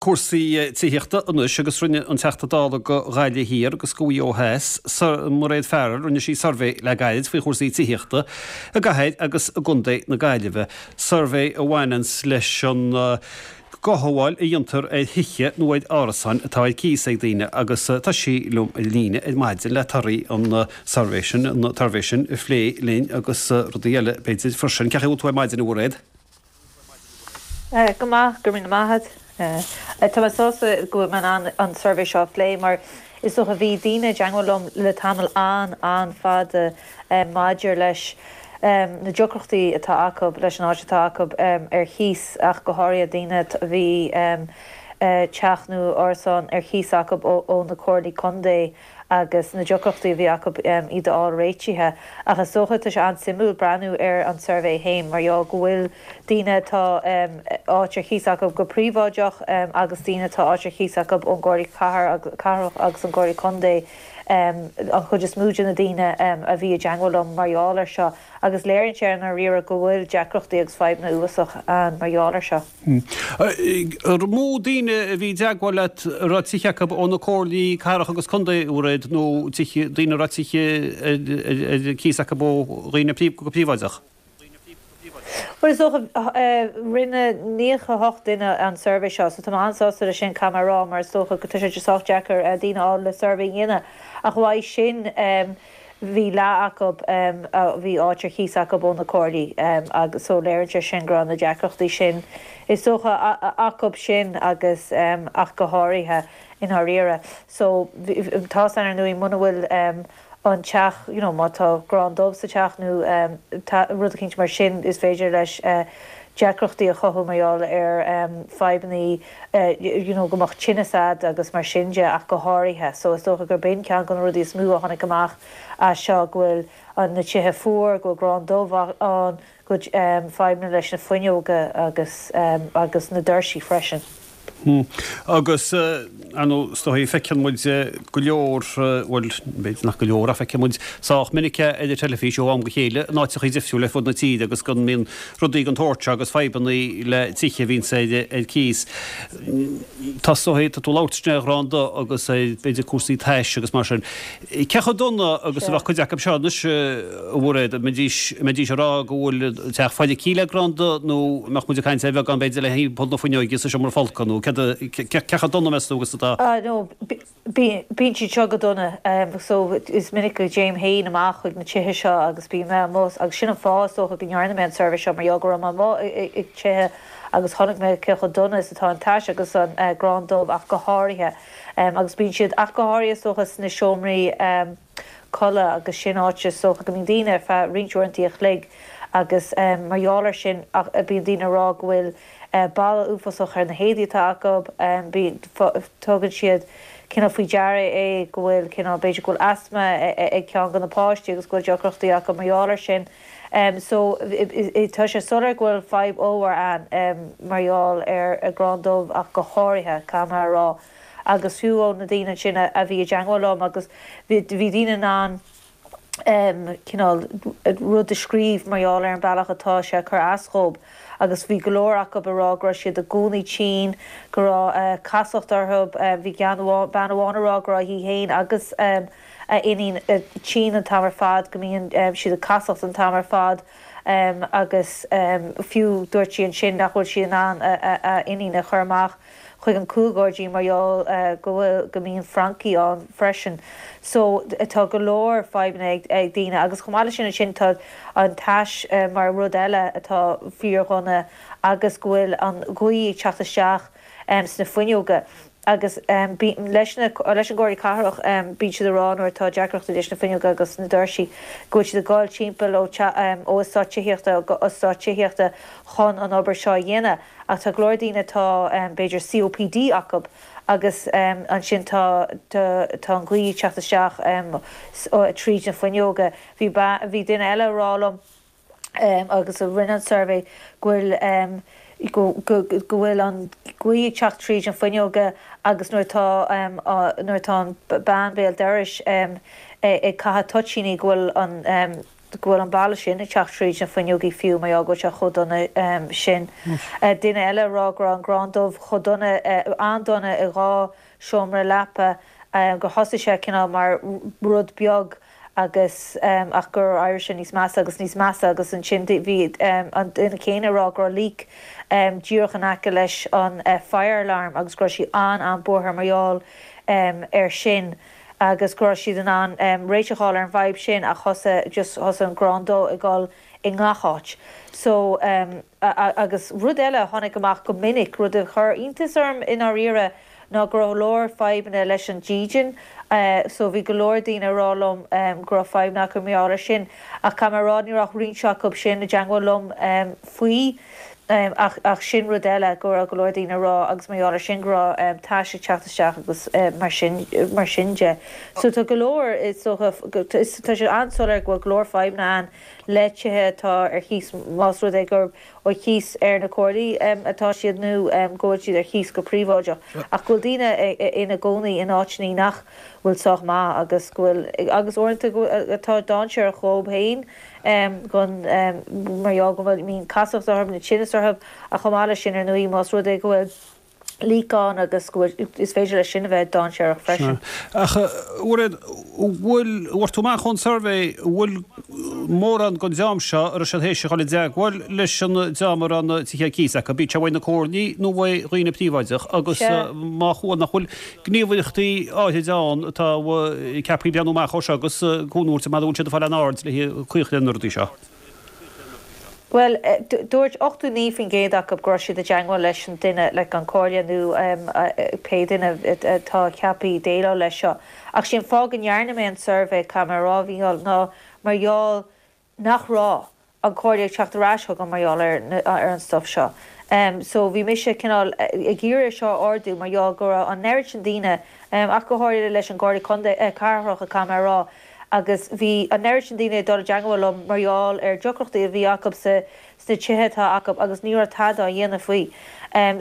Cúrsaí tithíochta anois agus rinne an Teachta Dála do Ghaillimh Thiar agus do Mhaigh Eo Theas, Mairéad Farrell, rinne sí suirbhé le gairid faoi chúrsaí tithíochta i gcathair agus i gcontae na Gaillimhe. Suirbhé a bhaineanns leis an gcothabháil a dhéantar ar thithe nó ar árasáin atá ar cíos ag daoine agus tá sí liom ar líne ar maidin le torthaí an tsuirbhé sin, an tsuirbhé sin a phlé linn agus rudaí eile b'fhéidir freisin. Cén chaoi a bhfuil tú ar maidin a Mhairéad? Go maith, go raibh míle maith agat. Tá mé sásta go bhfuil mé in ann an suirbhé seo a phlé mar is dócha bhí daoine i dteagmháil liom le tamall an-an-fhada maidir leis na deacrachtaí atá acu leis an áit atá acu ar chíos ach go háirithe daoine a bhí teach nó árasán ar chíos acu ó na comhairlí contae agus na deacrachtaí a bhí acu iad a fháil réitithe. Ach is dócha, tá sé an-suimiúil breathnú ar an suirbhé féin mar gheall go bhfuil daoine atá áit ar chíos acu go príobháideach agus daoine atá áit ar chíos acu ón gComhairle Cathrach agus an gComhairle Contae an chuid is mó de na daoine a bhí i dteagmháil liom mar gheall air seo. Agus léiríonn sé i ndáiríre go bhfuil deacrachtaí agus fadhbanna uafásach ann mar gheall air seo. An mó daoine a bhí i dteagmháil leat a raibh tithe acu ó na comhairlí cathrach agus contae, a Mhairéad, nó tithe, daoine a raibh tithe ar cíos acu ó dhaoine go príobháideach? Bhuel, is dócha, rinne 98 duine an suirbhé seo, so tá mé an-sásta leis sin, caithfidh mé a rá, mar is dócha go tá sé sách deacair daoine a fháil le suirbhé a dhéanamh. Ach uaidh sin, bhí leath acu a bhí áit ar chíos acu ó na comhairlí agus so léiríonn sé sin go raibh na deacrachtaí sin is dócha acu sin agus ach go háirithe i ndáiríre. So tá's a'inn ar ndóigh muna bhfuil an teach you know má tá grán dubh sa teach nó rud eicínt mar sin is féidir leis deacrachtaí a chothú mar gheall ar fadhbannaí you know go mbeadh tinneas a'd agus mar sin de ach go háirithe. So is dócha gur b'in ceann de na rudaí is mó a tháinig amach as seo, go bhfuil na tithe fuar, go bhfuil grán dubh ann, go bhfuil fadhbanna leis na fuinneoga agus agus na doirsí freisin. Agus, ar ndóigh, is dóigh, feiceann muid go leor, bhuel, b'fhéidir nach go leor, ach feiceann muid sách minic é ar an teilifís ó am go chéile in áiteachaí difriúla ar fud na tíre agus go mbíonn rudaí den tsórt seo agus fadhbanna le tithe a bhíonns ar cíos. Tá, is dóigh, tá tú ag labhairt ansin ar ghrán dubh agus ar, b'fhéidir, cúrsaí tais agus mar sin. Cé chomh dona agus a bheadh cuid acu seo anois, a Mhairéad? An mbeidís, an mbeidís ag rá go bhfuil an teach feicthe le grán dubh nó an mbeadh muid ag caint ar bheagán b'fhéidir le thimpeall na fuinneoige sa seomra folctha nó céard a, cé chomh dona meas tú agus atá? Ah no, bíonn siad seo go dona. So is minic go dtéim féin amach chuig na tithe seo agus bíonn mé amuigh agus sin an fáth is dócha go ndearna mé an suirbhé seo mar gheall go raibh mé amuigh ag tithe agus chonaic mé cé chomh dona is atá an tais agus an grán dubh ach go háirithe. Agus bíonn siad, ach go háirithe is dócha, sna seomraí codladh agus sin áit is dócha go mbíonn daoine ar feadh roinnt uaireanta a chloig agus mar gheall air sin bíonn daoine ag rá go bhfuil boladh uafásach ar na héadaí atá acu, bíonn, tugann siad cineál faoi deara é go bhfuil cineál, b'fhéidir go bhfuil asma ag ceann de na páistí agus go bhfuil deacrachtaí acu mar gheall air sin. So tá sé soiléir go bhfuil fadhb ollmhór ann mar gheall ar ghrán dubh ach go háirithe, caithfidh mé a rá. Agus fiú ó na daoine ansin a bhí i dteagmháil liom agus bhí daoine in ann cineál rud a scríobh mar gheall ar an bealach atá sé ag cur as dhób agus bhí go leor acu ag rá go raibh siad i gcónaí tinn, go raibh casacht orthu, bhí bean amháin ag rá go raibh í féin agus a iníon tinn an t-am ar fad, go mbíonn siad ag casacht an t-am ar fad agus fiú dúirt sí ansin nach bhfuil sí in ann a iníon a chur amach chuig an cúlghairdín mar gheall go bhfuil, go mbíonn francaigh ann freisin. So tá go leor fadhbanna ag daoine agus chomh maith leis sin ansin tá an tais mar rud eile atá fíordhona agus go bhfuil an ghaoth ag teacht isteach sna fuinneoga. Agus leis na, leis an gComhairle Cathrach, bíonn siad ag rá nuair atá deacrachtaí leis na fuinneoga agus na doirsí, go bhfuil siad ag dul timpeall ó ó eastát tithíochta go eastát tithíochta chun an obair seo a dhéanamh. Ach tá go leor daoine atá b'fhéidir COPD acu agus ansin tá tá an ghaoth ag teacht isteach tríd na fuinneoga. Bhí bhí duine eile ag rá liom, agus a rinne an suirbhé go bhfuil go bhfuil an ghaoth ag teacht tríd an fuinneoga agus nuair atá nuair atá an bean béal dorais ag caitheamh toitíní go bhfuil an. go bhfuil an boladh sin ag teacht tríd na fuinneogaí fiú mar gheall go bhfuil sé chomh dona sin. Duine eile ag rá go raibh an grán dubh chomh dona, an-dona i 2 seomra leapa, gur thosaigh sé cineál mar rud beag agus ach gur éirigh sé níos measa agus níos measa agus ansin bhí an duine céanna ag rá go raibh leak díreach in aice leis an fire alarm agus go raibh sí an-an-buartha mar gheall air sin agus go raibh siad in ann réiteach a fháil ar an bhfadhb sin ach thosaigh just thosaigh an grán dubh ag dul i ngach áit. So agus rud eile a tháinig amach go minic, rud a chuir iontas orm i ndáiríre, ná go raibh go leor fadhbanna leis an dídean. So bhí go leor daoine ag rá liom go raibh fadhbanna acu mar gheall air sin. Ach caithfidh mé a rá ní raibh ach roinnt acu sin i dteangmháil liom faoi. Ach ach sin rud eile go raibh go leor daoine ag rá agus mar gheall air sin go raibh tais ag teacht isteach agus mar sin mar sin de. So tá go leor is dócha tá sé an-soiléir go bhfuil go leor fadhbanna ann le tithe atá ar chíos más rud é gurb ar chíos ar na comhairlí atá siad nó go bhfuil siad ar chíos go príobháideach ach go bhfuil daoine ina gcónaí in áiteanna nach bhfuil sách maith agus go bhfuil agus uaireanta go atá dainséarach dhóibh féin gon mar gheall go bhfuil mbíonn casacht orthu nó tinneas orthu ach chomh maith leis sin ar ndóigh más rud é go bhfuil leak ann agus go bhfuil, is féidir leis sin a bheith dainséarach freisin. Sea. Ach, a Mhairéad, an bhfuil, bhfuair tú amach ón suirbhé, an bhfuil mórán den dream seo a raibh siad théis a dhul i dteagmháil leis an dream a raibh na tithe ar cíos acu, bíodh sé uaidh na comhairlí nó uaidh dhaoine príobháideach, agus má chuala, nach bhfuil gníomhaireachtaí áithrid ann atá ceaptha breathnú amach dhó seo agus cúnamh a thabhairt mara bhfuil siad ag fáil aon aird le caoi a chur ar na rudaí seo? Bhuel, dúirt 89% acu go raibh siad i dteangmháil leis an duine, like an comhairle nó pé duine atá ceaptha déileáil leis seo. Ach sé an fáth go ndearna mé an suirbhé, caithfidh mé a rá, a Mhícheáil, ná mar gheall nach raibh an comhairle ag teacht ar ais chugam mar gheall ar ar an stuff seo. So bhí mise cineál ag iarraidh é seo a ardú mar gheall go raibh an oiread sin daoine, ach go háirithe leis an gComhairle Contae, Cathrach, caithfidh mé a rá, agus bhí an oiread sin daoine ag dul i dteangmháil liom mar gheall ar deacrachtaí a bhí acu sa sna tithe atá acu agus ní raibh tada á dhéanamh faoi.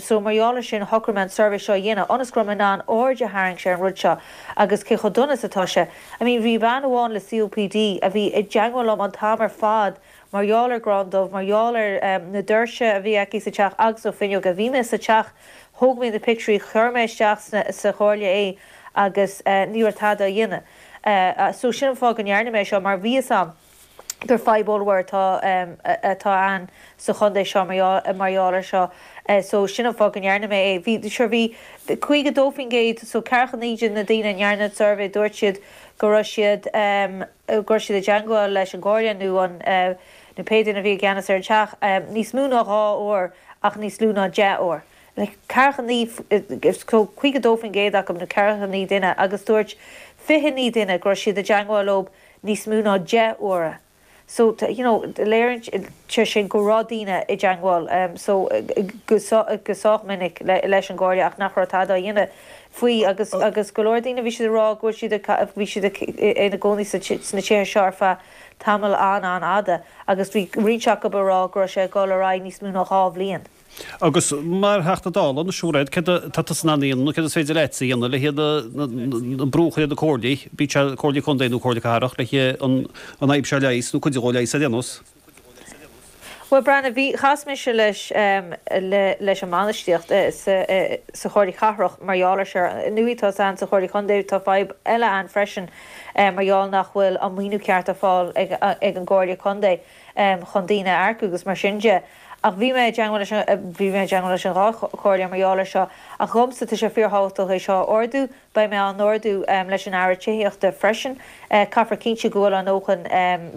So mar gheall ar sin shocraigh mé an suirbhé seo a dhéanamh ionas go raibh mé in ann aird a tharraingt ar an rud seo agus cé chomh dona is atá sé. I mean bhí bean amháin le COPD a bhí i dteangmháil liom an t-am ar fad mar gheall ar grán dubh, mar gheall ar na doirse a bhí aici sa teach agus na fuinneoga. Bhí mé sa teach, thóg mé na pictiúirí, chuir mé isteach sa chomhairle é agus ní raibh tada á dhéanamh. So sin an fáth go ndearna mé seo mar bhí fhios a'm gur fadhb ollmhór atá atá ann sa chontae seo mar gheall mar gheall ar seo. So sin an fáth go ndearna mé é. Bhí sure bhí 52% so ceathracha 9 de na daoine a ndearna an suirbhé dúirt siad go raibh siad go raibh siad i dteangmháil leis an gcomhairle nó an nó pé duine a bhí i gceannas ar an teach níos mó ná 2 uair ach níos lú ná 10 uair. Like 49, so 52% acu, nó 49 duine, agus dúirt 29 duine go raibh siad i dteangmháil leo níos mó ná 10 uaire. So, you know, léiríonn sé sin go raibh daoine i dteangmháil, so, go sách minic leis an gComhairle ach nach raibh tada á dhéanamh faoi agus, agus go leor daoine bhí siad ag rá go bhfuil siad ag, bhí siad ina gcónaí sna tithe seo ar feadh tamall an-an-fhada agus bhí roinnt acu ag rá go raibh sé ag dul ar aghaidh níos mó ná 2 bhliain. Agus mar Theachta Dála anois, a Mhairéad, céard atá tusa in ann a dhéanamh nó céard is féidir leatsa a dhéanamh le an brú a chur ar na comhairlí, bíodh sé comhairlí contae nó comhairle cathrach, le an fhadhb seo a leigheas nó cuid de a leigheas ar aon nós? Bhuel, Breandán, bhí, chas mise leis, leis an mbainistíocht sa, sa Chomhairle Cathrach mar gheall ar seo. Nuair atá ann sa Chomhairle Contae, tá fadhb eile ann freisin mar gheall nach bhfuil an maoiniú ceart ar fáil ag, ag an gComhairle Contae chun daoine a earcú agus mar sin de. Ach bhí mé i dteangmháil leis an, bhí mé i dteangmháil leis an dhá chomhairle mar gheall air seo. Ach dhomsa, tá sé fíorthábhachtach é seo a ardú. Beidh mé á n-ardú leis an Aire Tithíochta freisin. Caithfear cinntiú go bhfuil a ndóthain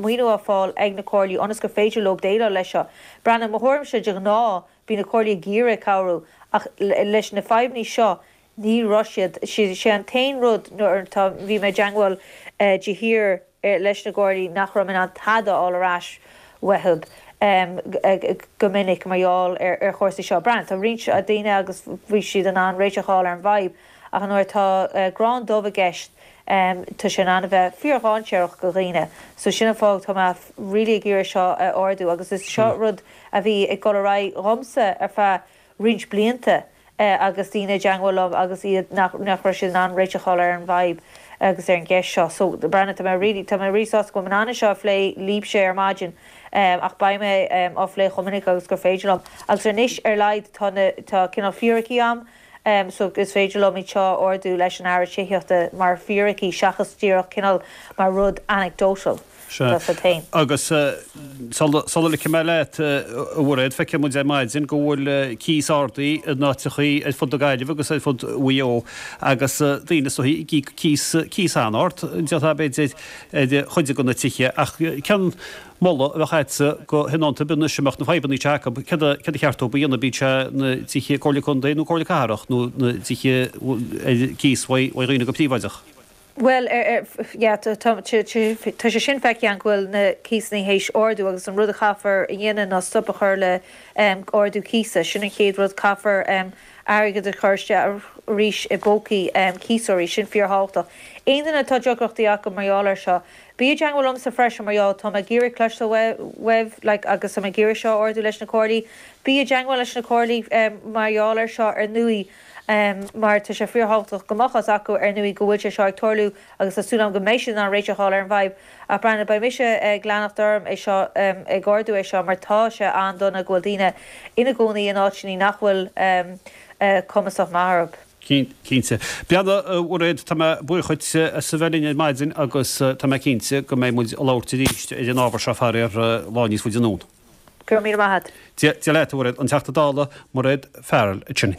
maoiniú á fáil ag na comhairlí ionas gur féidir leo déileáil leis seo. Breandán, mo thuairimse, de ghnáth, bíonn na comhairlí ag iarraidh cabhrú ach leis na fadhbanna seo, ní raibh siad. Sé an t-aon rud nuair atá, bhí mé i dteangmháil de shíor, leis na comhairlí nach raibh mé in ann tada a fháil ar ais uathu go minic mar gheall ar chúrsaí seo. Breandán, tá roinnt daoine agus bhí siad in ann réiteach a fháil ar an bhfadhb ach nuair atá grán dubh i gceist tá sé in ann a bheith fíor-dhainséarach do dhaoine. So sin an fáth tá mé really ag iarraidh seo a ardú agus is seo rud a bhí ag dul ar aghaidh dhomsa ar feadh roinnt blianta agus daoine i dteangmháil liom agus iad nach nach raibh siad in ann réiteach a fháil ar an bhfadhb. agus ar an gceist seo. So, Breandán, tá mé really, tá mé really sásta go bhfuil mé in ann é seo a phlé libhse ar maidin ach beidh mé á phlé chomh minic agus gur féidir liom. Agus anois ar laghad tá na, tá cineál fíricí a'm so is féidir liom iad seo a ardú leis an Aire Tithíochta mar fíricí seachas díreach cineál mar rud anecdotal. Sea. Agus sula ligfidh mé leat, a Mhairéad, feicfidh muid ar maidin go bhfuil cíos ardaithe in áiteachaí ar fud na Gaillimhe agus ar fud Mhaigh Eo agus daoine is dóichí ag íoc cíos, cíos an-ard, d'fhéadfá b'fhéidir, ar chuid de na tithe. Ach cén moladh a bheadh agatsa do thionóntaí ar bith anois a mbeadh na fadhbanna seo acu, céard a cheart dóibh a dhéanamh, bíodh sé na tithe Comhairle Contae nó Comhairle Cathrach nó na tithe ar cíos uaidh dhaoine go príobháideach? Bhuel, yeah, tá sé sin feicthe againn go bhfuil na cíosanna théis ardú agus an rud a chaithfear a dhéanamh ná stop a chur le ardú cíosa. Sin an chéad rud, caithfear airgead a chur isteach arís i bpócaí cíosóirí, sin fíorthábhachtach. Aon duine atá deacrachtaí acu mar gheall air seo, bí i dteangmháil liomsa freisin mar gheall, tá mé ag iarraidh cloisteáil uaibh like agus tá mé ag iarraidh seo a ardú leis na comhairlí. Bí i dteangmháil leis na comhairlí mar gheall air seo ar ndóigh. mar tá sé fíorthábhachtach go mbeadh fhios acu ar ndóigh go bhfuil sé seo ag tarlú agus tá súil agam go mbeidh siad in ann réiteach a fháil ar an bhfadhb. Ach Breandán, beidh mise ag leanacht orm é seo, ag ardú é seo mar tá sé an-dona go bhfuil daoine ina gcónaí in áiteanna nach bhfuil cumasach maith orthu. Cinnte. Breandán, a Mhairéad, tá mé buíoch dhuit as a bheith linn ar maidin agus tá mé cinnte go mbeidh muid ag labhairt arís ar an ábhar seo faraor lá níos faide anonn. Go raibh míle maith agat. Dia leat, a Mhairéad. An Teachta Dála, Mairéad Farrell ansin.